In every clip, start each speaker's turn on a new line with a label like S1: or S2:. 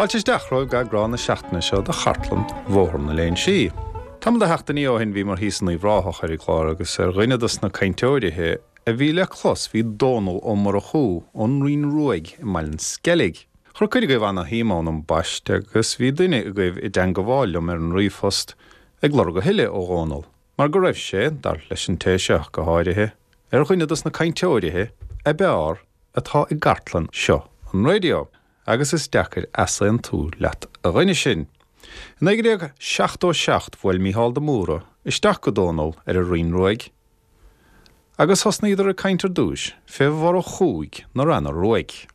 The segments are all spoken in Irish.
S1: Fáilte isteach romhaibh go eagrán na seachtaine seo de Chartlann Bhóthar na Léinsí. Tamall de sheachtainí ó shin bhíomar thíos in Uíbh Ráthach ar an gclár agus ar dhuine dos na cainteoirithe a bhí le clos bhí Dónal Ó Murchú ón Rinn Ruaidh i mBaile an Sceilg. Chuir cuid agaibh ana-shuim ann ambaiste agus bhí duine agaibh i dteangabháil liom ar an ríomhphost ag lorg a thuilleadh ó Dhónal mar go raibh sé, dar leis an té seo go háirithe, ar dhuine dos na cainteoirithe a b'fhearr atá i gcartlann seo an raidió. Agus is deacair easaontú leat a dhuine sin. I 1977 bhuail Mícheál de Mórdha isteach go Dónal ar an Rinn Ruaidh agus thosnaíodar ag caint ar dtúis fé Mhurchúigh na Ranna Ruaidh.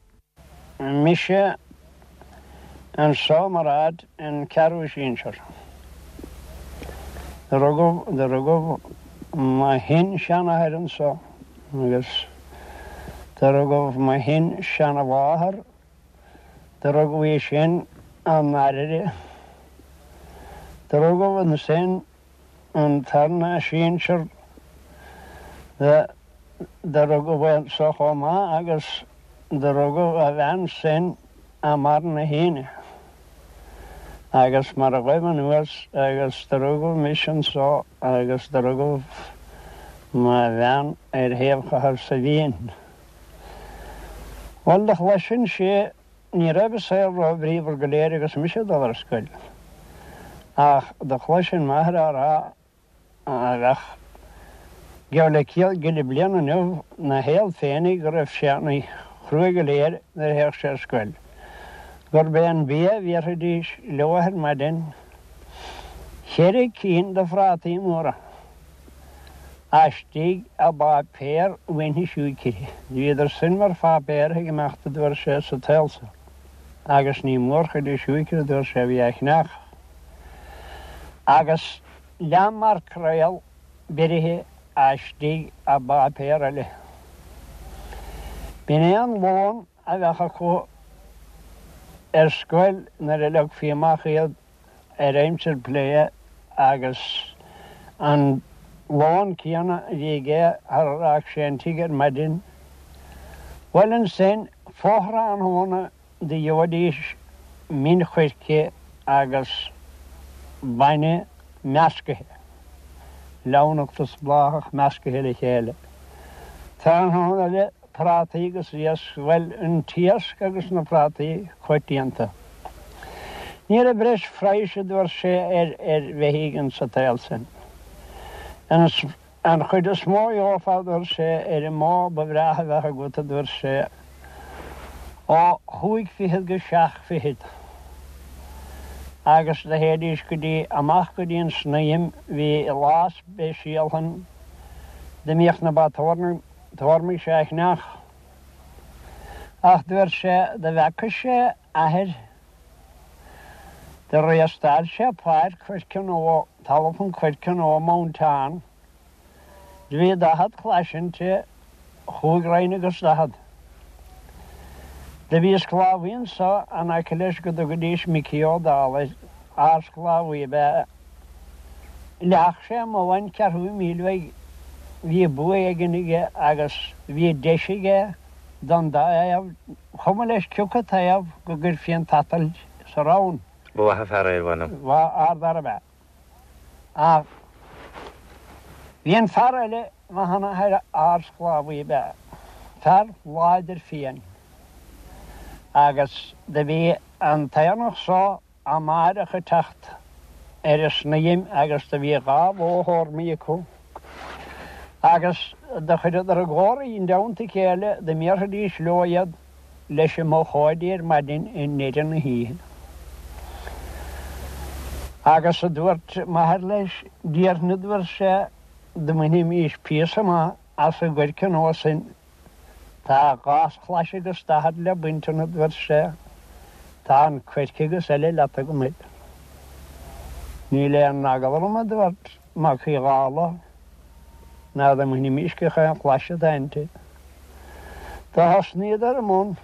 S2: Mise anso mar fhad an ceathrú sinsear. Do rugadh, do rugadh mo shin-seanathair anso agus do rugadh mo shin-seanamháthair Do rugadh í sin i nDairire. Do rugadh ansin an tarna sinsear do rugadh é anso chomh maith agus do rugadh a bhean sin i mBarr na hAoine. Agus mar a ghaibh anuas agus do rugadh mise anso agus do rugadh mo bhean ar thaobh Chathair Saidhbhín. Bhuel, do chloisinnse, ní raibh an saol ró-bhríomhar go léir agus mise ag dul ar scoil, ach do chloisinn m'athair á rá a bheadh geall le céad gile bliain inniu 'na shaol féinig go raibh sé ana chruaidh go léir nuair a théadh sé ar scoil, gurb é an bia a bhéarfaidís leo ar maidin, cheithre cinn de phrátaí móra. Istigh i bpáipéar mhuinthi siúicre. Bhíodar sin mar pháipéar ag imeacht a dúirt sé sa tsaol so. Agus ní mórchuid de siúicre a dúirt sé a bhí á chneach. Agus leath maircréal beirithe istigh i bpáipéar eile. B'in é an lón a bheadh acu ar scoil nuair a leogfaí amach iad ar aimsir plé agus an lón céanna a bhí aige thar a rachadh sé an tigh ar maidin. Bhuel ansin fo-thráthnóna do gheobhaidís min choirce agus bainne meascaithe, leamhnacht is bláthach meascaithe le chéile. Tráthnóna eile Prátaí agus iasc, bhuel, an t-iasc agus na prátaí coitianta. Ní raibh breis phraghais, a dúirt sé, ar ar bheithígh insa tsaol sin. An an chuid is mó a gheofá, a dúirt sé, ar an mbó ba bhreátha a bheadh agat, a dúirt sé, ó chúig fichead go seacht fichead. Agus do théidís go dtí, amach go dtí an Snaidhm, bhí lá speisialta ann, da mbíodh na ba tórnaigh, Tórmaigh sé a chneach. Ach dúirt sé da bhfeaca sé athair do réastáil sé páirc choirce nó talamh an choirce nó Mountain. Do bhí 40 clais inti, chúig roinn agus 40. Do bhí sclábhaí anso in aice leis go dtugaidís Micí Ó Dálaigh, ard-sclábhaí ab ea é. Leath sé amuigh an ceathrú míle uaidh. Bhí bua éigin aige agus bhí deis aige don dá thaobh, chuma leis cioca taobh go gcuirfí an tsatailt sa rann.
S3: Ba mhaith an fear é, mh'anam.
S2: Ba ardfhear ab ea. Ach bhí an fear eile, mo sheanathair, ardsclábhaí ab ea, fear láidir fiáin. Agus do bhí an t-aonach so amáireach ag teacht ar an snaidhm agus do bhí dha bhó thórmaigh acu agus do chuireadar i gcomhar i dteannta a chéile da mbéarfaidís leo iad leis an mbochóidí ar maidin i ndeireadh na hoíche. Agus a dúirt m'athair leis, déarfainn a dúirt sé, da mbainfimís píosa maith as an gcoirce nua sin Tá dhá chlais agus 40 le baint ann, a dúirt sé. Tá an coirce agus eile leat agam air. Níl aon eagla orm, a dúirt Mac Uí Dhálaigh, ná dá mbainfimís gach aon chlais atá inti. Do thosnaíodar i mbun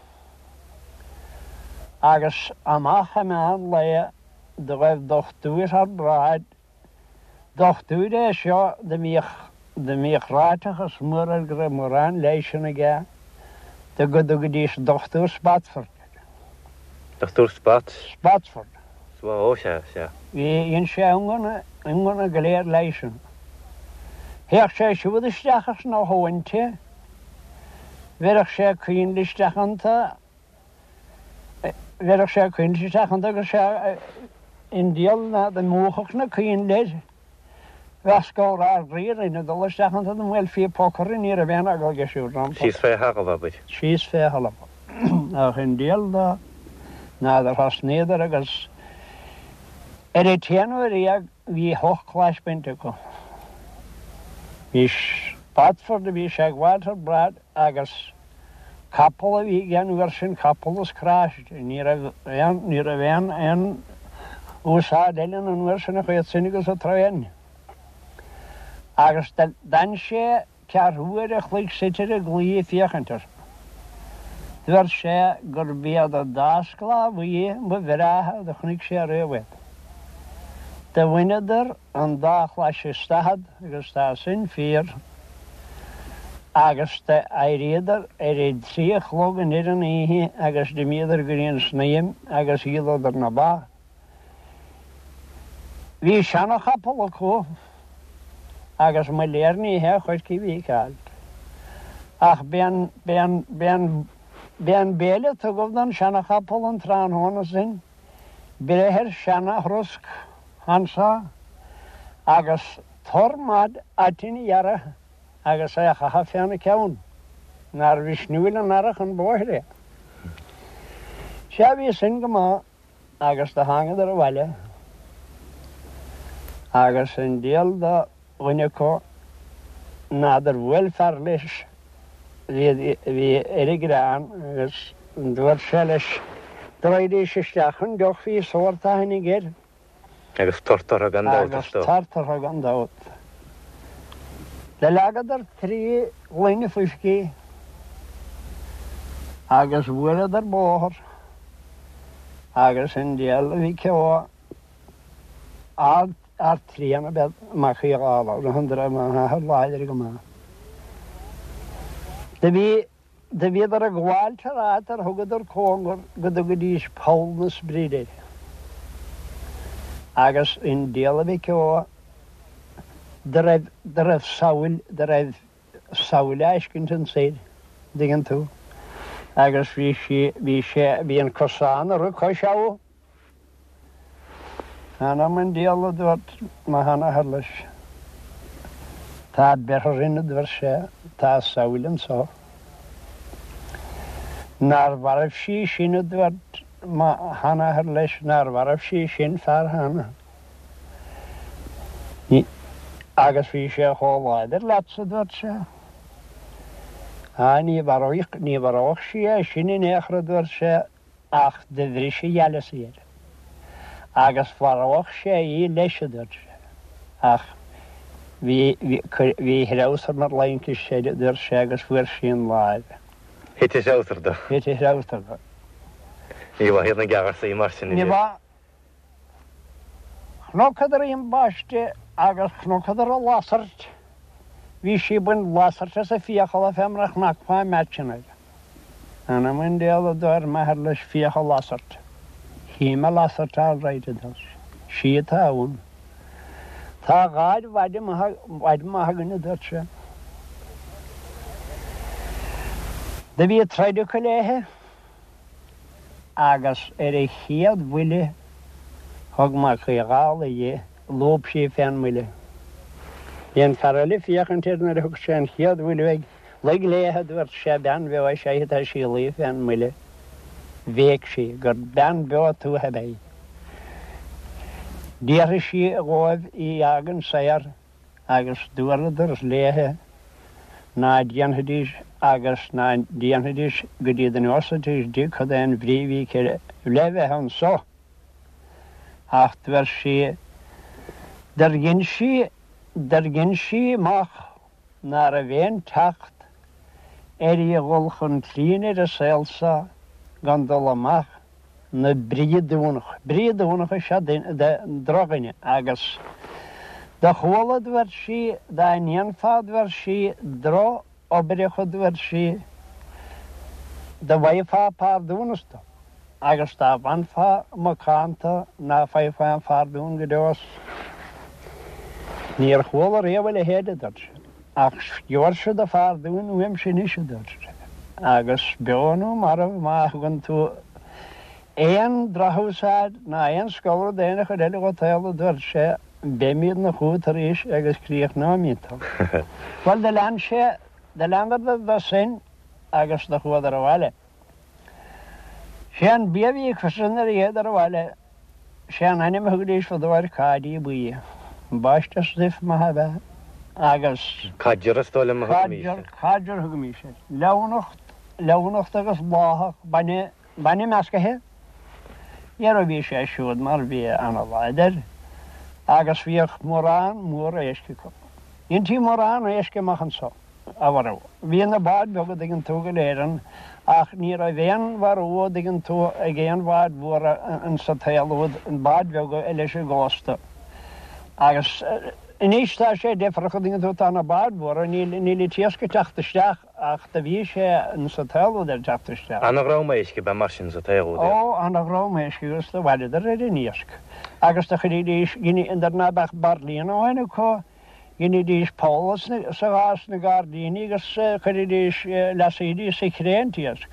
S2: agus amach i meán lae do ghaibh dochtúir thar bráid Dochtúir é seo da mbíodh, da mbíodh ráiteachas mór air go raibh mórán leighis aige, do go dtugaidís Dochtúir Spotsford air.
S3: Dochtúir Spot.
S2: Spotswood.
S3: Ó, sea, sea.
S2: Bhí, dhein sé a iongnadh, iongnadh go léir leisean. Théadh sé siúd isteach sna thóinte, bheireadh sé coinnle isteach iontu, bheireadh sé coinnle isteach iontu agus sé an diabhal ná dá múchfadh na coinnle air. Bheadh scamhar ár gcroí orainn ag dul isteach iontu dá mbuailfí poc orainn ní raibh aon eagla aige siúd rompu.
S3: Síos fé thalamh, abair.
S2: Síos fé thalamh. Ach an diabhal dó ná gur thosnaíodar agus ar an t-aon uair dhéag bhí ocht clais bainte acu. Bhí Spotswood a bhí sé ag gabháilt ar brad agus Capall a bhí aige an uair sin, capall is cráiste. Ní raibh aon, ní raibh aon, aon úsáid eile ann an uair sin ach iad sin agus an traein. Agus d'fhan sé ceathrú uair a chloig suite ar an gclaí ag féachaint orthu. Dúirt sé gurb iad an dá sclábhaí ba bhreátha do chonaic sé riamh iad. Do bhaineadar an dá chlais is daichead agus tá sin fíor, agus d'éiríodar ar a dtrí a chlog an ar an oíche agus d'imíodar go dtí an snaidhm agus dhíoladar na ba. Bhí seana-chapall acu agus mo léir ní hé an choirce a bhí ag fáilt. Ach b'é an, b'é an, b'é an, b'é an béile a tugadh don seana-chapall an tráthnóna sin. Breith ar seana-throsc anso agus tor maith aitinn a ghearradh agus é a chaitheamh féna ceann, nár mhisniúil an earrach an bóthar é. Sea, bhí sin go maith agus do thángadar abhaile agus an diabhal do dhuine acu n'fheadar bhuail fear leis bhí bhí ar an gcrann agus dúirt sé leis go raghaidís isteach chun deoch bhí sórt aithne aige air.
S3: Agus tort orthu gan dabht
S2: is dóigh. Agus tort orthu gan dabht. Do leagadar trí ghloine fuiscí agus bhuaileadar bóthar agus an diabhal a bhí ceo ard Ardtrian ab ea Mac Uí Dhálaigh, an raibh m'athair láidir go maith. Do bhí, do bhíodar ag gabháilt thar áit ar thugadar cóngar go dtugaidís Poll na Spride air. Agus an diabhal a mhic ó, do raibh, do raibh samhail, do raibh samhail á fheiscint ansoir, an dtuigeann tú. Agus bhí sí, bhí sé, bhí an cosán ag rith cois abha. Th'anam 'on diabhal a dúirt mo sheanathair leis. Tá beirthe orainn a dúirt sé, tá samhail anso. Nár mhairbh sí sin a dúirt mo sheanathair leis, nár mhairbh sí sin fear cheana. Agus bhí sé chomh láidir leatsa a dúirt sé. Á ní mharóidh, ní mharódh sí é sin in aon chor a dúirt sé. Ach do bhris a ghealasaí air. Agus mharódh sé í leis, a dúirt sé. Ach bhí, bhí, bhí a threabhsar mar laincis air, a dúirt sé, agus fuair sí an láimh.
S3: Thit a threabhsar dó.
S2: Thit a threabhsar dó.
S3: Ní mhaith iad na geagharsaí mar sin.
S2: Ní mhaith. Chonacadar í ambaiste agus chonacadar an lasairt. Bhí sí ag baint lasairt as a fiacla fé mar a chnacfá meaitseanna. Anam an diabhail a dúirt m'athair leis féach an lasairt. Chím an lasairt all right a dúirt sé. Sí atá ann. Tá gáir mhaide maith againn a dúirt sé. Do bhí troid acu léithe. Agus ar an chéad bhuille thug Mac Uí Dhálaigh di, lúb sí fén mbuille. Bhí an fear eile ag féachaint air nuair a thug sé an chéad bhuille uaidh. Luigh léithe, a dúirt sé, bean bheo is ea í, tá sí ag luí fén mbuille. Bhéic sí gur bean bheo tuaithe ab ea í. D'fhiafraigh sí dhóibh í a fhágaint saor. Agus dúradar léithe ná déanfaidís agus ná déanfaidís go dtí go neosaidís di cad é an bhrí a bhí aici le bheith anso. Ach dúirt sí, dur dhein sí, dur dhein sí amach ná raibh aon teacht uirthi a dhul chun cinn ar an saol so gan dul amach 'na briodúnach. Briodúnach is ea drochdhuine agus do chuala, dúirt sí, dá ndéanfá, dúirt sí, drochoibreacha, dúirt sí, do bhfaighfeá pardúnas dó. Agus dá bhfanfá macánta ná faighfeá aon phardún go deo as. Níor chuala riamh a leithéid, a dúirt sé. Ach gheobhairse do phardún uaimse anois, a dúirt sé, agus beo nó marbh má thugann tú aon drochúsáid ná aon scolrad d'aon chuid eile dhot a dúirt sé, beimídne chugat arís agus críochnóimíd tú. Bhuel, do lean sé, do leanadar dó sin agus do chuadar abhaile. Sé an bia a bhí acusan nuair a théadar abhaile, sé an ainm a thugaidís fadó air cáidí buí. Ambaiste stuif maith ab ea agus.
S3: Codger is dóigh liom a thugaimís air.
S2: Codger, codger a thugaimís air. Leamhnacht, leamhnacht agus bláthach, bainne, bainne meascaithe. Dhera bhí sé siúd mar bhia ana-láidir agus bhíodh mórán mór éisc acu. Dheintí mórán éisc amach anso. a mharú. Bhí na báid bheaga, dtuigeann tú, go léir ann, ach ní raibh aon mharú, a dtuigeann tú, ag aon bháid mhóra insa tsaol úd, báid bheaga leis an gcósta. Agus anois tá sé deifreach, a dtuigeann tú, tá na báid mhóra, níl, níl an t-iasc ag teacht isteach ach do bhí sé insa tsaol úd ag teacht isteach.
S3: Ana-dhream éisc ab ea mar sin sa tsaol úd,
S2: é? Ó, ana-dhream éisc agus do mhaireadar ar an iasc. Agus do chuiridís, nuair ná beadh bairlín amháin acu, Dheinidís poll sa ghás sna gairdíní agus chuiridís, leasaídís sa chré an t-iasc.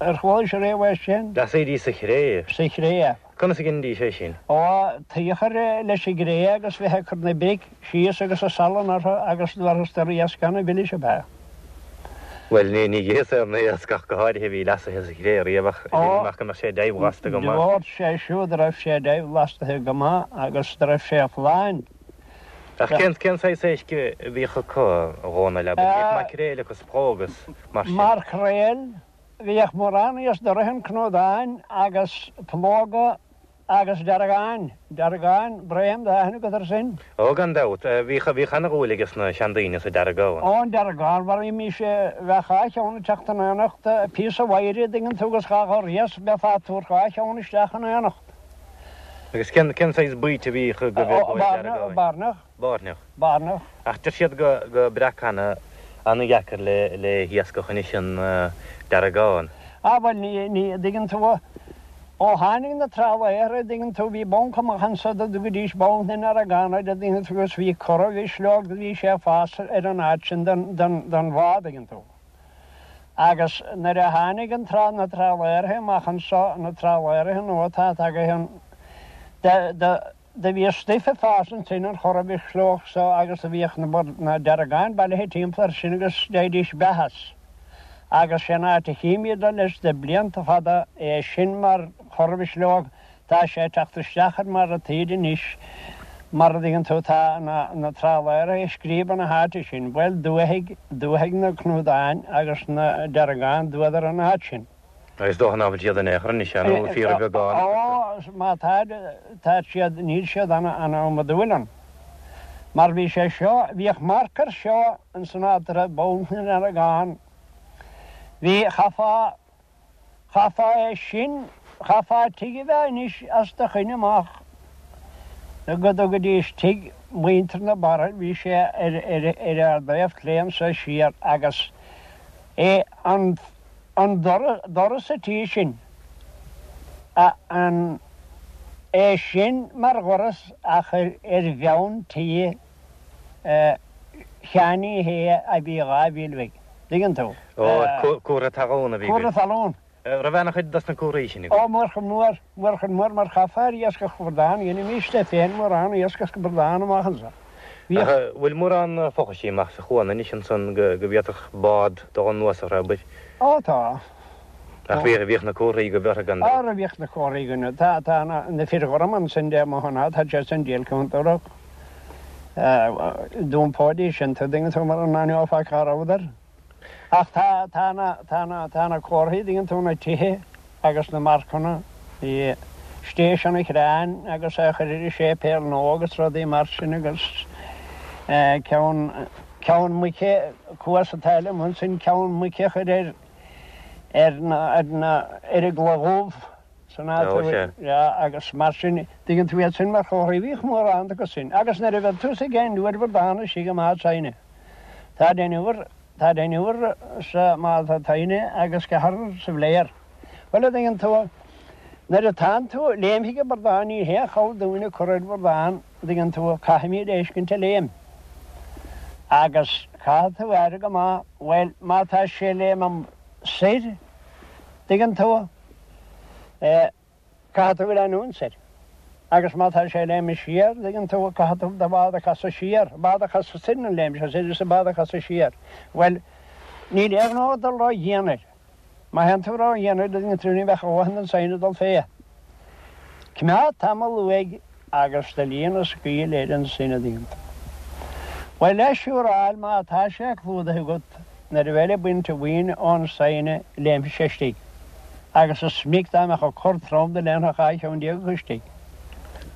S2: Ar chualaís ariamh é sin?
S3: Leasaídís sa chré?
S2: Sa chré.
S3: Conas a dheinidís é sin?
S2: Ó, tuí a chur leis an gcré agus bheith ag cur na bric síos agus an salann orthu agus dtabharfas iasc ana-mhilis ab ea.
S3: Bhuel, ní itheas aon iasc ach go háirithe a bhí leasaithe sa chré riamh ach deirim amach go mbeadh sé deighbhlasta go maith.
S2: Dúirt sé siúd raibh sé deighbhlastaithe go maith agus raibh sé folláin.
S3: Ach cén cén saghas éisc a bhíodh acu, a Dhónaill, abair? Bhíodh maicréil agus pró agus mar sin.
S2: Maicréil, bhíodh mórán iasc doraithe cnódáin agus plóga agus deargáin, deargáin, braon, tá aithne agat air sin?
S3: Ó, gan dabht. Bhíodh, bhíodh ana-dhúil ages na seandaoine sa deargán.
S2: Ó, an deargán, mharaímís, bheadh dhá cheann ag teacht in éineacht, píosa mhaidhre, a dtuigeann tú, agus dhá ghorr iasc, bheifeá ag tabhairt dhá cheann isteach in éineacht.
S3: Agus cén cén saghas baoite a bhíodh go bhfir go deargáin?
S2: Bairneach.
S3: Bairneach.
S2: Bairneach.
S3: Ach deir siad go go breac ana ana-dheacair le le hiascach anois an deargán.
S2: Ah bhuel ní ní a dtuigeann tú ó tháinig na trálaeir a dtuigeann tú bhí banc amach anso dá dtugaidís banc na ndeargán air a dtuigeann tú agus bhí corra-mhisleog bhí sé ag fás ar an áit sin den den den bhá a dtuigeann tú. Agus nuair a tháinig an trá, na trálaeraithe amach anso, na trálaeraithe nua atá tagaithe ann, do, do, do bhí stuif ag fás ansin, an chorra-mhisleog so agus do bhíodh na, na deargáin bailithe timpeall air sin agus d'fhaighidís beatha as. Agus sé an áit a chímíd leis de blianta fada é sin mar chorra-mhisleog Tá sé ag teacht isteach ar mar ataoid anois, mar a dtuigeann tú, tá na trálaeraithe ag scríobadh na háite sin. Bhuel, dúthaigh, dúthaigh na cnúdáin agus na deargáin, d'fhuadar an áit sin.
S3: Is dócha ná fuil siad in aon chor anois, nó fíorbheagán
S2: acu. Ó, má tá, tá siad, níl siad ana-iomadúil ann. Mar bhí sé seo, bhíodh marc air seo ins an áit a raibh Banc na nDeargán. Bhí, chaithfeá, Chaithfeá é sin, chaithfeá tigh a bheith anois as do choinne amach go dtugaidís tigh mhuintir na Barra, bhí sé ar ar ár dtaobh clé anso siar agus é an an doras a tí sin, a an é sin mar dhoras ach ar ar bheann tí Sheáin Uí Shé a bhí 2 mhíle uaidh. Dtuigeann tú?
S3: Ó, cuartha talún a bhí
S2: agaibh. Cuartha talún.
S3: Raibh ana-chuid dos na cuarthaí sin agaibh?
S2: Ó, mórchuid mór, mórchuid mór mar chaithfeá ar iascach bradán, dheinimíste féin mórán iascach bradán amach anso.
S3: Bhíodh. Ach bhfuil mórán fochaisí amach sa chuan anois ansan go bhféadfadh bád dul anuas orthu, abair?
S2: Ó, tá.
S3: Ach bhíodh na comharthaí agaibh orthu gan
S2: dabht. Ara bhíodh na comharthaí againn. Tá, tá na fir ghorma ansin de mo shon, tá siad san díol contúirteach. D'iompóidís sin, tuigeann tú, mara n-aithneofá cá rabhadar. Ach tá, tá na, tá na, tá na comharthaí, dtuigeann tú, na tithe agus na marcanna, bhí Station an Chreáin agus é a chur ar an séipéal nua agus rudaí mar sin agus ceann, ceann muice, Cuas an tSaile amuigh ansin, ceann muice a chur ar, ar na, ar na, ar an gCloich Dhubh san áit a bhfuil, yeah, agus mar sin, dtuigeann tú iad sin mar chomharthaí, bhíodh mórán acu sin. Agus nuair a bheadh tusa ag deichniúr bradán istigh i mBád Saighne, tá deichniúr, tá deichniúr sa mBád Saighne agus ceathrar sa Bhléar. Bhuel, a dtuigeann tú. Nuair atánn tú, léimfidh an bradán, ní haon chabhair dúinn ag cur ar bhradán, an dtuigeann tú, caithfimid é fheiscint ag léim. Agus caithfidh tú aire go maith, bhuel, má tá sé ag léim soir, an dtuigeann tú, eh, caithfidh tú leanúint soir. Agus má tá sé ag léim siar, an dtuigeann tú, caithfidh tú do bhád a chasadh siar, bád a chasadh soir nuair a léim sé soir is an bád a chasadh siar. Bhuel, níl aon ghnó ag dul ró-dhian air. Má théann tú ró-dhian air, an dtuigeann tú, ní bheadh a dhóthain den saighne ag dul fé. Coimeád tamall uaidh agus do líon a scaoil air ansin, an dtuigeann tú. Bhuel, le siúráil, má tá sé clúdaithe agat, nuair a bheifeá ag baint an bhuin ón saighne, léimfidh sé istigh. Agus is minic dá mbeadh an cor trom do léimfeadh 12 cheann acu istigh.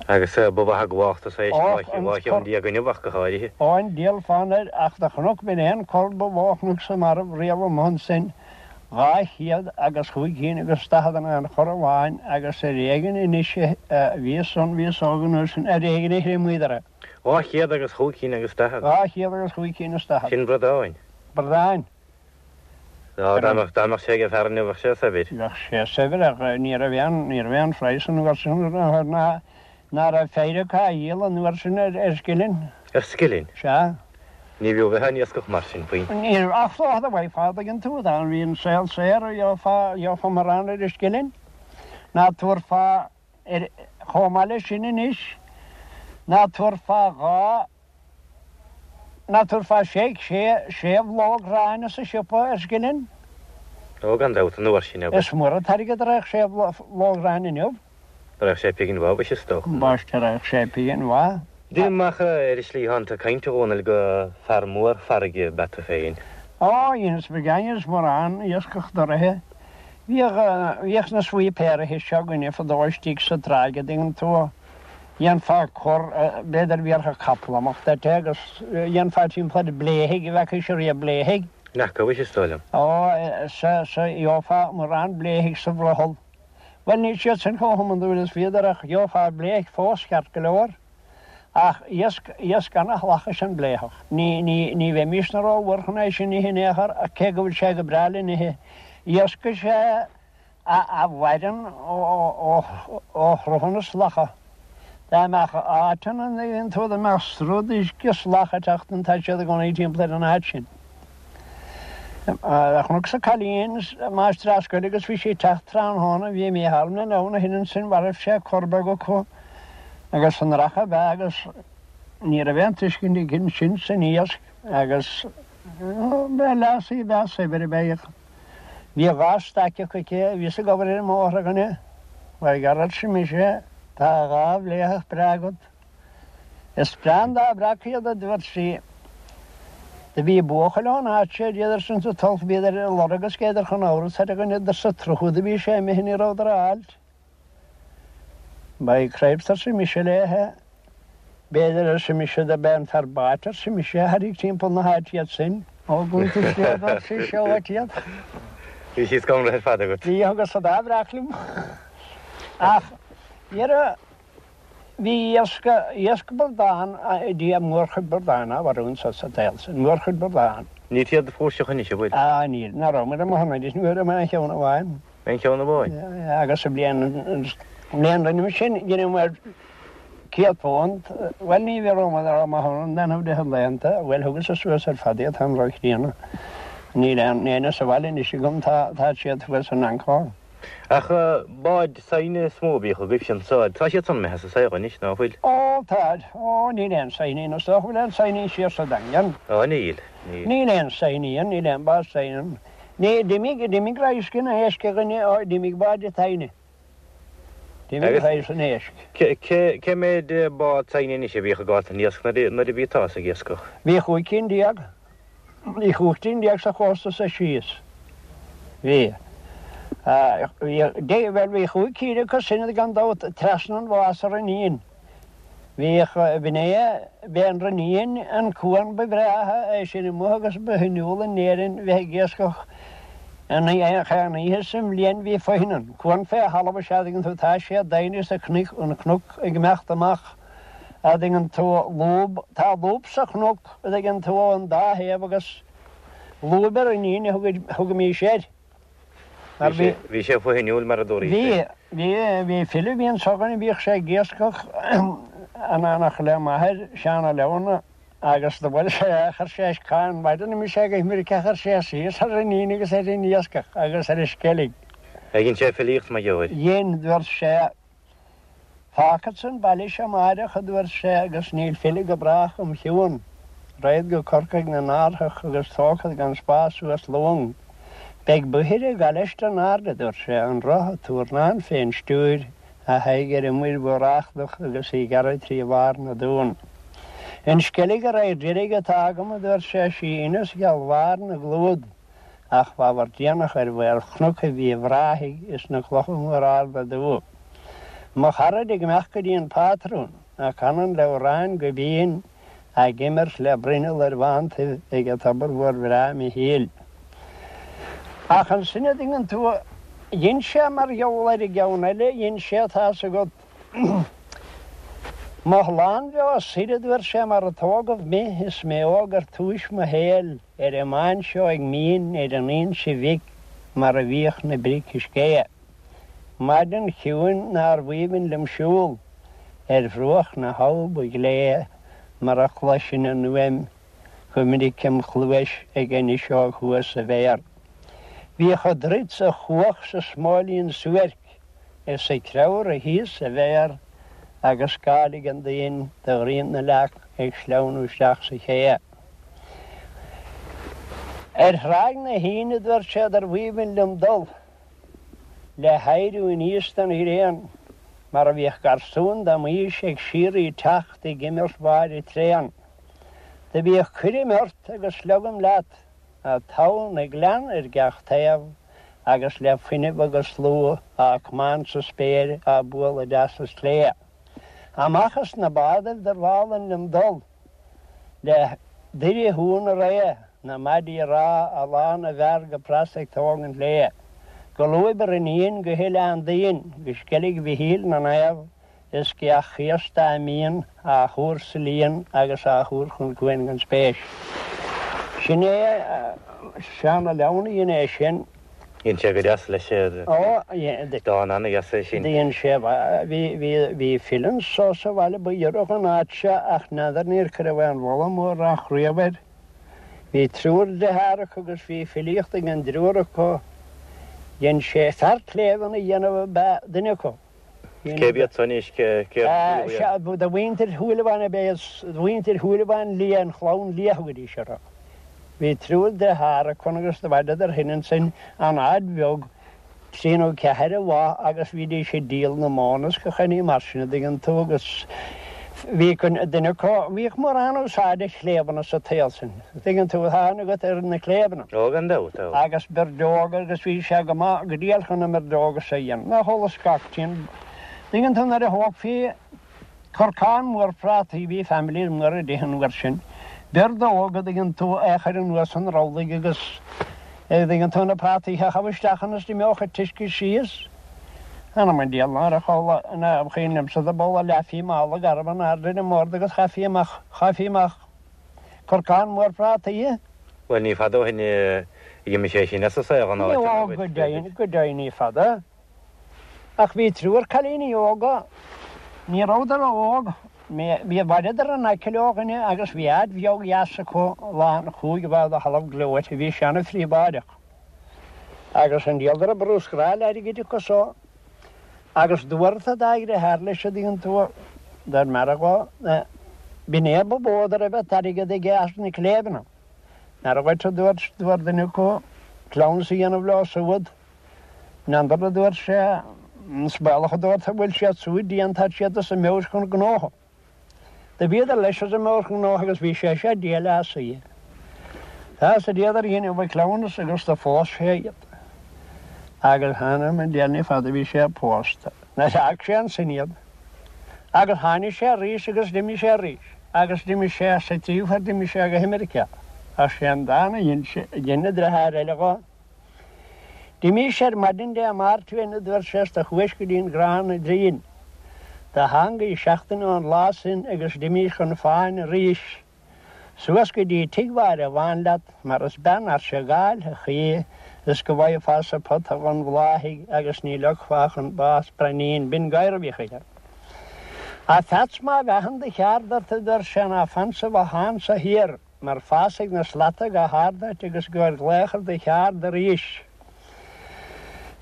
S3: Agus ba mhaith ag mháchtas é 12 cheann inniu ach go háirithe.
S2: Ó, an diabhal fonn air, ach do chonac b'in é an cor ba mhó a chonacsa marbh riamh amuigh ansin, 200 agus chúig cinn agus 40 in aon chor amháin agus ar éigin anois a bhíos ann, bhíos óg an uair sin, ar éigin a thriomaíodar é.
S3: 200 agus chúig cinn agus 40.
S2: 200 agus chúig cinn is 40.
S3: Sin bradáin.
S2: Bradáin.
S3: Á, dá mbeadh, dá mbeadh sé ag fear inniu bheadh sé saibhir.
S2: Bheadh sé saibhir ach ní raibh aon, ní raibh aon phraghas an uair sin air ná, ná raibh feidhre acu á dhíol an uair sin ar, ar scilling.
S3: Ar scilling?
S2: Sea.
S3: Ní bhfiú bheith á n-iascach mar sin faoi.
S2: Ní raibh, ach dócha dá bhfaighfeá, an dtuigeann tú, dá bhí an saol saor, gheofá, gheofá mórán ar an scilling. Ná tabharfá ar, chomh maith leis sin anois, ná tabharfá 2, Ná tabharfá sé, sé, sé bhlóg aráin sa siopa ar scilling?
S3: Ó, gan dabht, an uair sin, abair.
S2: Is mór an t-airgead a raghadh sé bhlóg aráin inniu.
S3: Raghadh sé pingin mhaith, mhuise, is dócha.
S2: Ambaiste, raghadh sé pingin mhaith.
S3: Deinim amach ar an slí thánn tú ag caint, a Dhónaill, go fear mór farraige ab ea tú féin.
S2: Ó, dheineas mo dheineas mórán iascach doraithe. Bhíodh, bhíodh na sweepéaraithe seo againne fadó istigh sa tráigh, a dtuigeann tú. Dhéanfá cor, b'fhéidir bhéarfadh capall amach duit é agus dhéanfá timpeall ar bléithigh, an bhfeacaís riamh bléithigh?
S3: N'fheaca, mhuise, is dóigh liom.
S2: Ó, sea, sea, gheofá mórán bléithigh sa bhrothall. Bhuel, níl siad sin chomh hiondúil is bhíodar ach gheofá bléithigh fós ceart go leor. Ach iasc, iasc ana-shalach is ea an bléitheach. Ní, ní, ní bheimísne rómhór chun é sin a ithe in aon chor ach cé go bhfuil sé go breá le n-ithe. Iasc is ea a mhaireann ó shruthanna salacha. Dá mbeadh áit ann an dtuigeann tú, dá mbeadh sruth d'uisce salach ag teacht ann, tá siad i gcónaí timpeall ar an áit sin. Chonacsa cailín, máistreás scoile agus bhí sí ag teacht tráthnóna, bhí Mícheál ina leabhar ó shin ansin, mharaibh sé cor beag acu agus an racha ab ea agus ní raibh aon tuiscint aici ansin san iasc agus ba lassie breá saibhir ab ea í. Bhí 2 staic acu aici, bhíos ag obair ar an mbóthar, a dhuine. By gar, arsa mise, tá 2 bhléitheach breá agat. Is breá an dá bhreac iad, a dúirt sí. Do bhí buachaill ón áit seo, bhíodar sin sa tulach, bhíodar ar a lorg agus bhíodar chun amhras air, a dhuine, sa tsruth do bhí sé imithe ní rabhadar á fháilt. By cripes, arsa mise léithe. B'fhéidir, arsa mise, do b'é an fear báid, arsa mise, a thairrig timpeall na háite iad sin. Ó, gúnta sléibhe, ar sise, ó, uait iad.
S3: Bhí siad scanraithe ar fad agat.
S2: Bhí, agus an dá bhreac liom. Ach, dhera, bhí iasc, iasc bradán, Dia, mórchuid bradán á mharú anso sa tsaol sin, mórchuid bradán.
S3: Níl siad flúirseach anois, an bhfuil?
S2: Á, níl, ná raibh muid amuigh anois, ní raibh aon cheann amháin.
S3: Aon cheann amháin?
S2: Agus sa bhliain, bhliain roimhe sin, dheineamar £100, bhuel ní rabhamar amach ann an rith laethanta, bhuel thugas-sa suas ar fad iad, táim ró-chríonna. Níl aon éinne sa bhaile anois agam, tá, tá siad thuas in Ancón.
S3: Ach báid saighne is mó a bhíodh agaibhse anso, tá siad san imithe as an saol anois, ná fuil?
S2: Ó, táid. Ó, níl aon saighní, is dócha go bhfuil aon saighní siar sa Daingean.
S3: Ó, níl, níl.
S2: Níl aon saighní ann, níl aon bád saighne ann. Ní, d'imigh, d'imigh radharc an éisc, a dhuine, ó, d'imigh báid saighne. D'imigh radharc an éisc.
S3: Cé, cé, cé mhéid bád saighne anois a bhíodh ag gabháil don iasc nuair a, nuair a bhí tusa ag iascach?
S2: Bhí 15 cinn. Bhí 15 cinn sa chósta so síos. Bhí. Bhí, bhuel, bhí chúig cinn acu sin gan dabht trasna an bhá sa Rinnín. Bhíodh, b'in é, b'é an Rinnín an cuan ba bhreátha é sin amuigh agus ba shuimiúla in Éirinn bheith ag iascach an aon oíche sa mbliain bhí foithin ann. Cuan fé thalamh is ea a dtuigeann tú, tá sé doimhin is an cnoc ag imeacht amach a dtuigeann tú, lúb, tá lúb sa chnoc a dtuigeann tú ón dá thaobh agus lúb an Rinnín a thugaimís air. Mar bhí.
S3: Bhí sé fuinniúil mar a dúraís.
S2: Bhí, bhí, bhí file a bhí anso againn a bhíodh sé ag iascach in éineacht le m'athair, Seán Ó Leamhna, agus do bhuail sé, chuir sé an mhaidin a mbí sé ag imirce chuir sé síos ar an fhíon agus ar an iascach agus ar an sceilg.
S3: Dhein sé filíocht mar gheobhair.
S2: Dhein, dúirt sé, Fágfadsa an baile seo amáireach, a dúirt sé, agus níl filleadh go brách im chiúin. Raghad go Corcaigh 'na n-árthach agus tógfad gan spás suas long. Beidh bodhaire ag gabháil leis in airde, a dúirt sé, an roth a túrnán fén stiúir, a haghaidh ar an muir mhór eachadach agus í gearradh trí bharr na dtonn. An Sceilg a raghair deiridh atá agam, a dúirt sé, sí Inis Gheal bharr na gclúad. Ach b'ábhar déanach ar mhaolchnoc Mhíobh Ráthaigh is na clocha móra arda dubha. Mo charaid ag imeacht go dtí an pátrún, a canann le amhráin go binn, ag imirt le bruinneall ar bhántaibh ag a tobar mhór bhreá Mhichíl. Ach ansin a dtuigeann tú, dhein sé mar gheall ar an gceann eile, dhein sé, tá's agat, Mo shlánbheo soir a dúirt sé mar a tógadh mé is mé óg ar túis mo shaoil. Ar an mbán seo ag Mín ar an Inse Bhig mar a bhíodh na bric is géa. Maidin chiúin nárbh aoibhinn liom siúl ar bhruach na habha ba ghlé mar a chloisinn an fhuaim go minic im chluais ag an fhuiseog thuas sa bhféar. Bhíodh a druid 's a chuach sa smóilín suairc is a creabhradh thíos sa bhféar agus scáil an doinn de ghrian na leac ag sleamhnú isteach sa ché. Ar Thráigh na hAoine dúirt sé darbh aoibhinn liom dul le héiriú aníos den ghréin mar a bhíodh garsúin de m'aois ag síoraí teacht ag imirt bháire tréan. Do bhíodh cuirim ort agus sliogaim leat, a togha na gclann ar gach taobh agus le fuinneamh agus slua á cmáint sa spéir á bualadh deas is clé. Amach as na bádaibh darbh álainn liom dul. Le Doire Dhún na Ré, na maidí ráth a lán na bhfear go pras ag tógaint léi. Go Lúib ar an Fhíon, go hOileán Duinn, go Sceilg Mhichíl na Naomh, is go Each Chéasta a mbíonn á thuar sa líon agus á thuar chun cuain gan spéis. Sin é Seán Ó Leamhna a dhein é sin.
S3: Dhein sé go deas leis é.
S2: Ó, dhein.
S3: Dán ana-dheas é sin.
S2: Dhein sé, bhí, bhí, bhí file anso sa bhaile ba ghiorra dhon áit seo ach n'fheadar níor cuireadh aon mholadh mórán riamh air. Bhí triúr deartháir acu agus bhí filíocht ag an dtriúr acu. Dhein sé fear cléibheanna a dhéanamh ab ea duine acu.
S3: Cérbh iad san anois? Cérbh
S2: iad? De mhuintir Shúilleabháin ab ea iad, de mhuintir Shúilleabháin Liath, an chlann Liath a thugaidís orthu. Bhí triúr deartháir acu agus do bhaineadar shin ansin an áit bheag, trí nó ceathair a bha agus bhídís ag díol na móna is gach aon ní mar sin, a dtuigeann tú, agus bhí duine acu, bhíodh mórán úsáide chléibheanna sa tsaol sin, a dtuigeann tú, tá aithne agat ar na cléibheanna.
S3: Ó, gan dabht,
S2: tá. Agus birdeoga agus bhí sé go maith, go diail chun na mbirdóga so a dhéanamh. Nach eolas gach tinn. Tuigeann tú nuair a thógfaí corcán mór prátaí, bhí families móra ag ithe an uair sin, birdóg, a dtuigeann tú, é a chur anuas an rollaigh agus, a dtuigeann tú, na prátaí a chaitheamh isteach ann is d'imeodh an t-uisce síos. Anam an diabhail ná raibh chomh, ná cuimhin liomsa do b'amhlaidh leathfaí mála garbh in airde ar an mbord agus chaithfí amach, chaithfí amach corcán mór prátaí.
S3: Bhuel, ní fada ó shin a d'imigh sé sin as an saol, an áit
S2: ina bhfuil. Ó, go deimhin, go deimhin ní fada. Ach bhí triúr cailíní óga, ní rabhadar ró-óg, bhí, bhaineadar in aice leo dhuine agus bhí áit bheag dheas acu lán chúig bha de thalamh gleoite, bhí sé ana-phríobháideach. Agus an diabhal dá raibh bruscar airgid acu so. Agus dúirt a dá dheartháir leis a dtuigeann tú, dar m'fhear dhó, b'in é ba mhó dá raibh an t-airgead aige as na cléibheanna. N'fheadar dhuit a dúirt, dúirt duine acu, cleamhnas a dhéanamh leo siúd. N'fheadar a dúirt sé, is baolach a dúirt a bhfuil siad súd dian tá siad as a meabhair chun gnótha. Do bhíodar leis as a meabhair chun gnótha agus bhí sé sé diail as í. Tá sa diadar dhéanamh a cleamhnas agus do phós sé iad. Agus th'anam 'on diabhal ní fada bhí sé pósta. Nuair a d'fhág sé ansin iad. Agus tháinig sé arís agus d'imigh sé arís. Agus d'imigh sé sa tríú huair d'imigh sé go hAmeiriceá. Ach sé an dán a dhein sé, a dhein a dheartháir eile dhó. D'imís ar maidin Dé Máirt uainn a dúirt sé is do chuais go dtí an gcrann oighinn. Do thángaís seachtain ón lá sin agus d'imís chun fáin arís. Suas go dtí tigh Mháire Bhán leat mar is bean fhairse gáilthe í. Is go bhfaighfeá-sa pota dhon bhláthaigh agus ní leogfá chun bás braoinín binn gadhar a bhíodh aige. A Pheats má mheathann do cheard ort a dúirt sé ná fan sa bhothán so thiar mar fásfaidh na slata go hard duit agus gabhair glaoch ar do cheard arís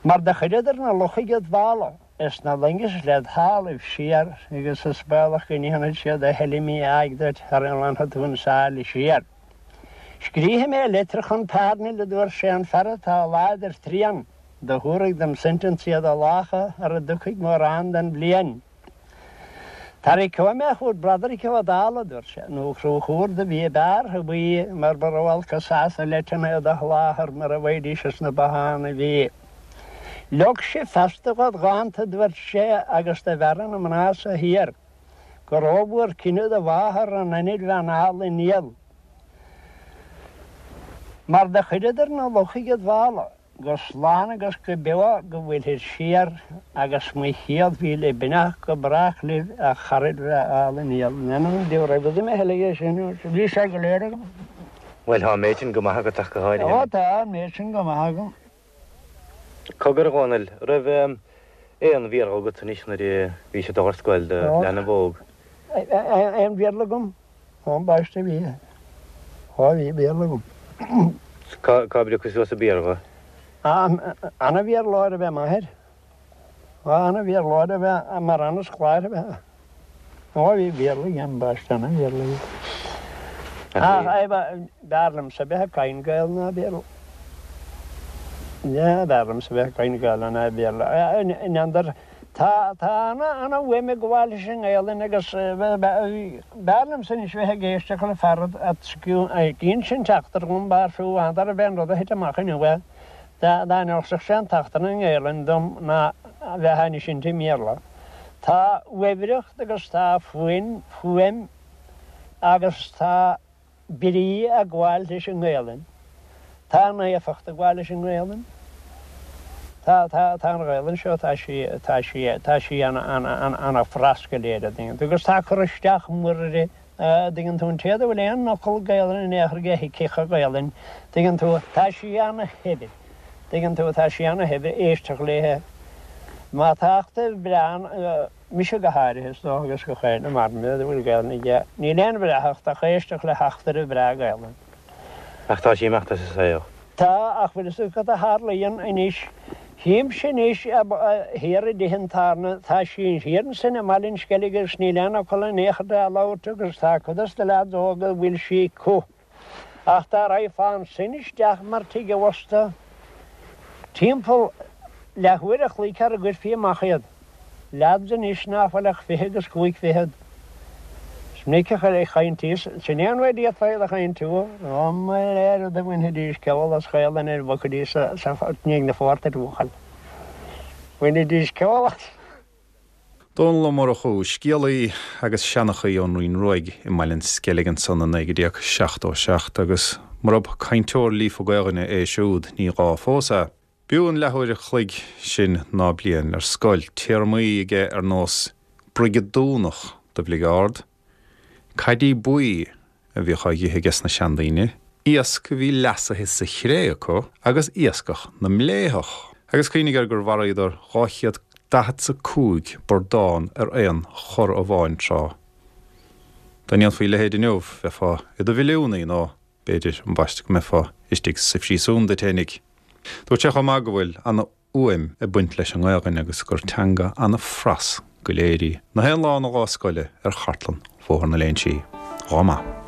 S2: mar do chuireadar na luchaigh id mhála is na loingis led thalamh siar agus is baolach go ndéanfaid siad a thuilleadh mí-áidh duit sara nglanfaidh tú an sáile siar. Scríobfaidh mé litir chun Parnell a dúirt sé an fear atá láidir tréan do thabharfaidh dom sentensaí do lácha ara dtiocfaidh mórán den bhliain. Tarraiceoidh mé chugat Broderick Ó Dálaigh, a dúirt sé, nó Conchúr do bhí i beartha buí mar ba ró-olc an sásamh leideanna do sholáthar mura bhfaighidís as na botháin a bhí. Leog sibh feasta dhod dhánta, a dúirt sé, agus do bhearradh na mná so thiar, go rómhór cine do mháthar an ainbhean álainn fhial. Mar do chuireadar na luchaigh id mhála. Go slán agus go beo go bhfuilthir siar agus mo chéad mhíle beannacht go brách libh a charaid bhreá álainn fhial. N'fheadar an raibh fhios a'm a thuilleadh é sin, bhí sé go léir agam.
S3: Bhuel, tá an méid sin go maith agat ach go háirithe.
S2: Ó tá an méid sin go maith agam.
S3: Cogar, a Dhónaill, raibh aon Bhéarla agat anois nuair a bhís ag dul ar scoil do leanbh óg?
S2: Aon Bhéarla agam? Ó, ambaiste bhí. Ó, bhí Béarla agam.
S3: Cá bpriocadh suas an Béarla?
S2: Ana-Bhéarlóir ab ea m'athair. Ó, ana-Bhéarlóir ab ea, mar ana-scoláire ab ea. Ó, bhí Béarla aige, ambaiste, ana-Bhéarla aige. Ach, b'fhearr liomsa bheith ag caint Gaelainn ná Béarla. B'fhearr liomsa bheith ag caint Gaelainn ná Béarla. N'fheadar, Tá, tá ana, ana-fhuaim ag gabháil leis an nGaelainn agus b'fhearr liomsa anois bheith ag éisteacht le fear ag insint eachtra dhom, b'fhearr fiú n'fheadar ab é an rud a thit amach inniu é, dá n-inseodh sé an t-eachtra i nGaelainn dom ná a bheith á insint i mBéarla. Tá uaibhreacht agus tá fuaim, fuaim agus tá. brí ag gabháil leis an nGaelainn. Tá naofacht ag gabháil leis an nGaelainn. Tá, tá, tá an Ghaelainn seo, tá sí, tá sí, tá sí ana, ana, ana, ana phras go léir, a dtuigeann tú, agus tá cur isteach mór uirthi, a dtuigeann tú, an té a bhfuil aon fhocal Gaelainn in aon chor aige thuigfeadh an Ghaelainn, tuigeann tú, tá sí ana shaibhir, tuigeann tú, tá sí ana shaibhir, éisteacht léithe. Má tá eachtra breá, Mise go háirithe, is dócha, agus gach éinne mar mé a bhfuil Gaelainn aige, níl aon bhreáthacht ach éisteacht le heachtra bhreá Gaelainn.
S3: Ach tá sí ag imeacht as an saol.
S2: Tá, ach bhfuil fhios agat cad a tharlaíonn anois? Chímse anois thiar i dtithe an tábhairne, tá sí thiar ansin i mBaile an Sceilg agus níl aon fhocal in aon chor á labhairt agus tá cuid dos na leaids óga a bhfuil sí acu. Ach dá raghfá ansin isteach mar tigh an bhosta, timpeall leathuair a chloig sara gcuirfí amach iad, leaids anois ná fuil ach 25 agus fichead. Is minic a chaintís, sin é an rud a d'fhéadfá iad a chaintiú, ó mo léir do bhainfidís ceol as Gaelainn ar bhogfaidís sa ndiaidh na phortaigh buachaill. Bhainfidís ceol as.
S1: Dónall Ó Murchú, scéalaí agus seanchaí ón Rinn Ruaidh i mBaile an Sceilg ansan i 1977 agus murab cainteoir líofa Gaelainne é siúd ní gá fós é. B'fhiú an leathuair a chloig sin ná bliain ar scoil, téarmaí aige ar nós brigeadúnach do bhligeárd, caidí buí a bhíodh á dh'ithe aige sna seandaoine, iasc a bhí leasaithe sa chré acu agus iascach na mbléitheach. Agus cuimhnigh air gur mharaíodar 245 burdán ar aon chor amháin tráth. Dá ndéanfaí a leithéid inniu, bheifeá i do mhilliúnaí nó b'fhéidir, ambaiste, go mbeifeá istigh sa phríosún duit fhéinig. Dúirt sé chomh maith go bhfuil ana. fhuaim ag baint leis an nGaelainn agus gur teanga ana-phras go léir í. Na haon lá ina lá scoile ar chartlann Bhóthar na Léinsí. Lá maith.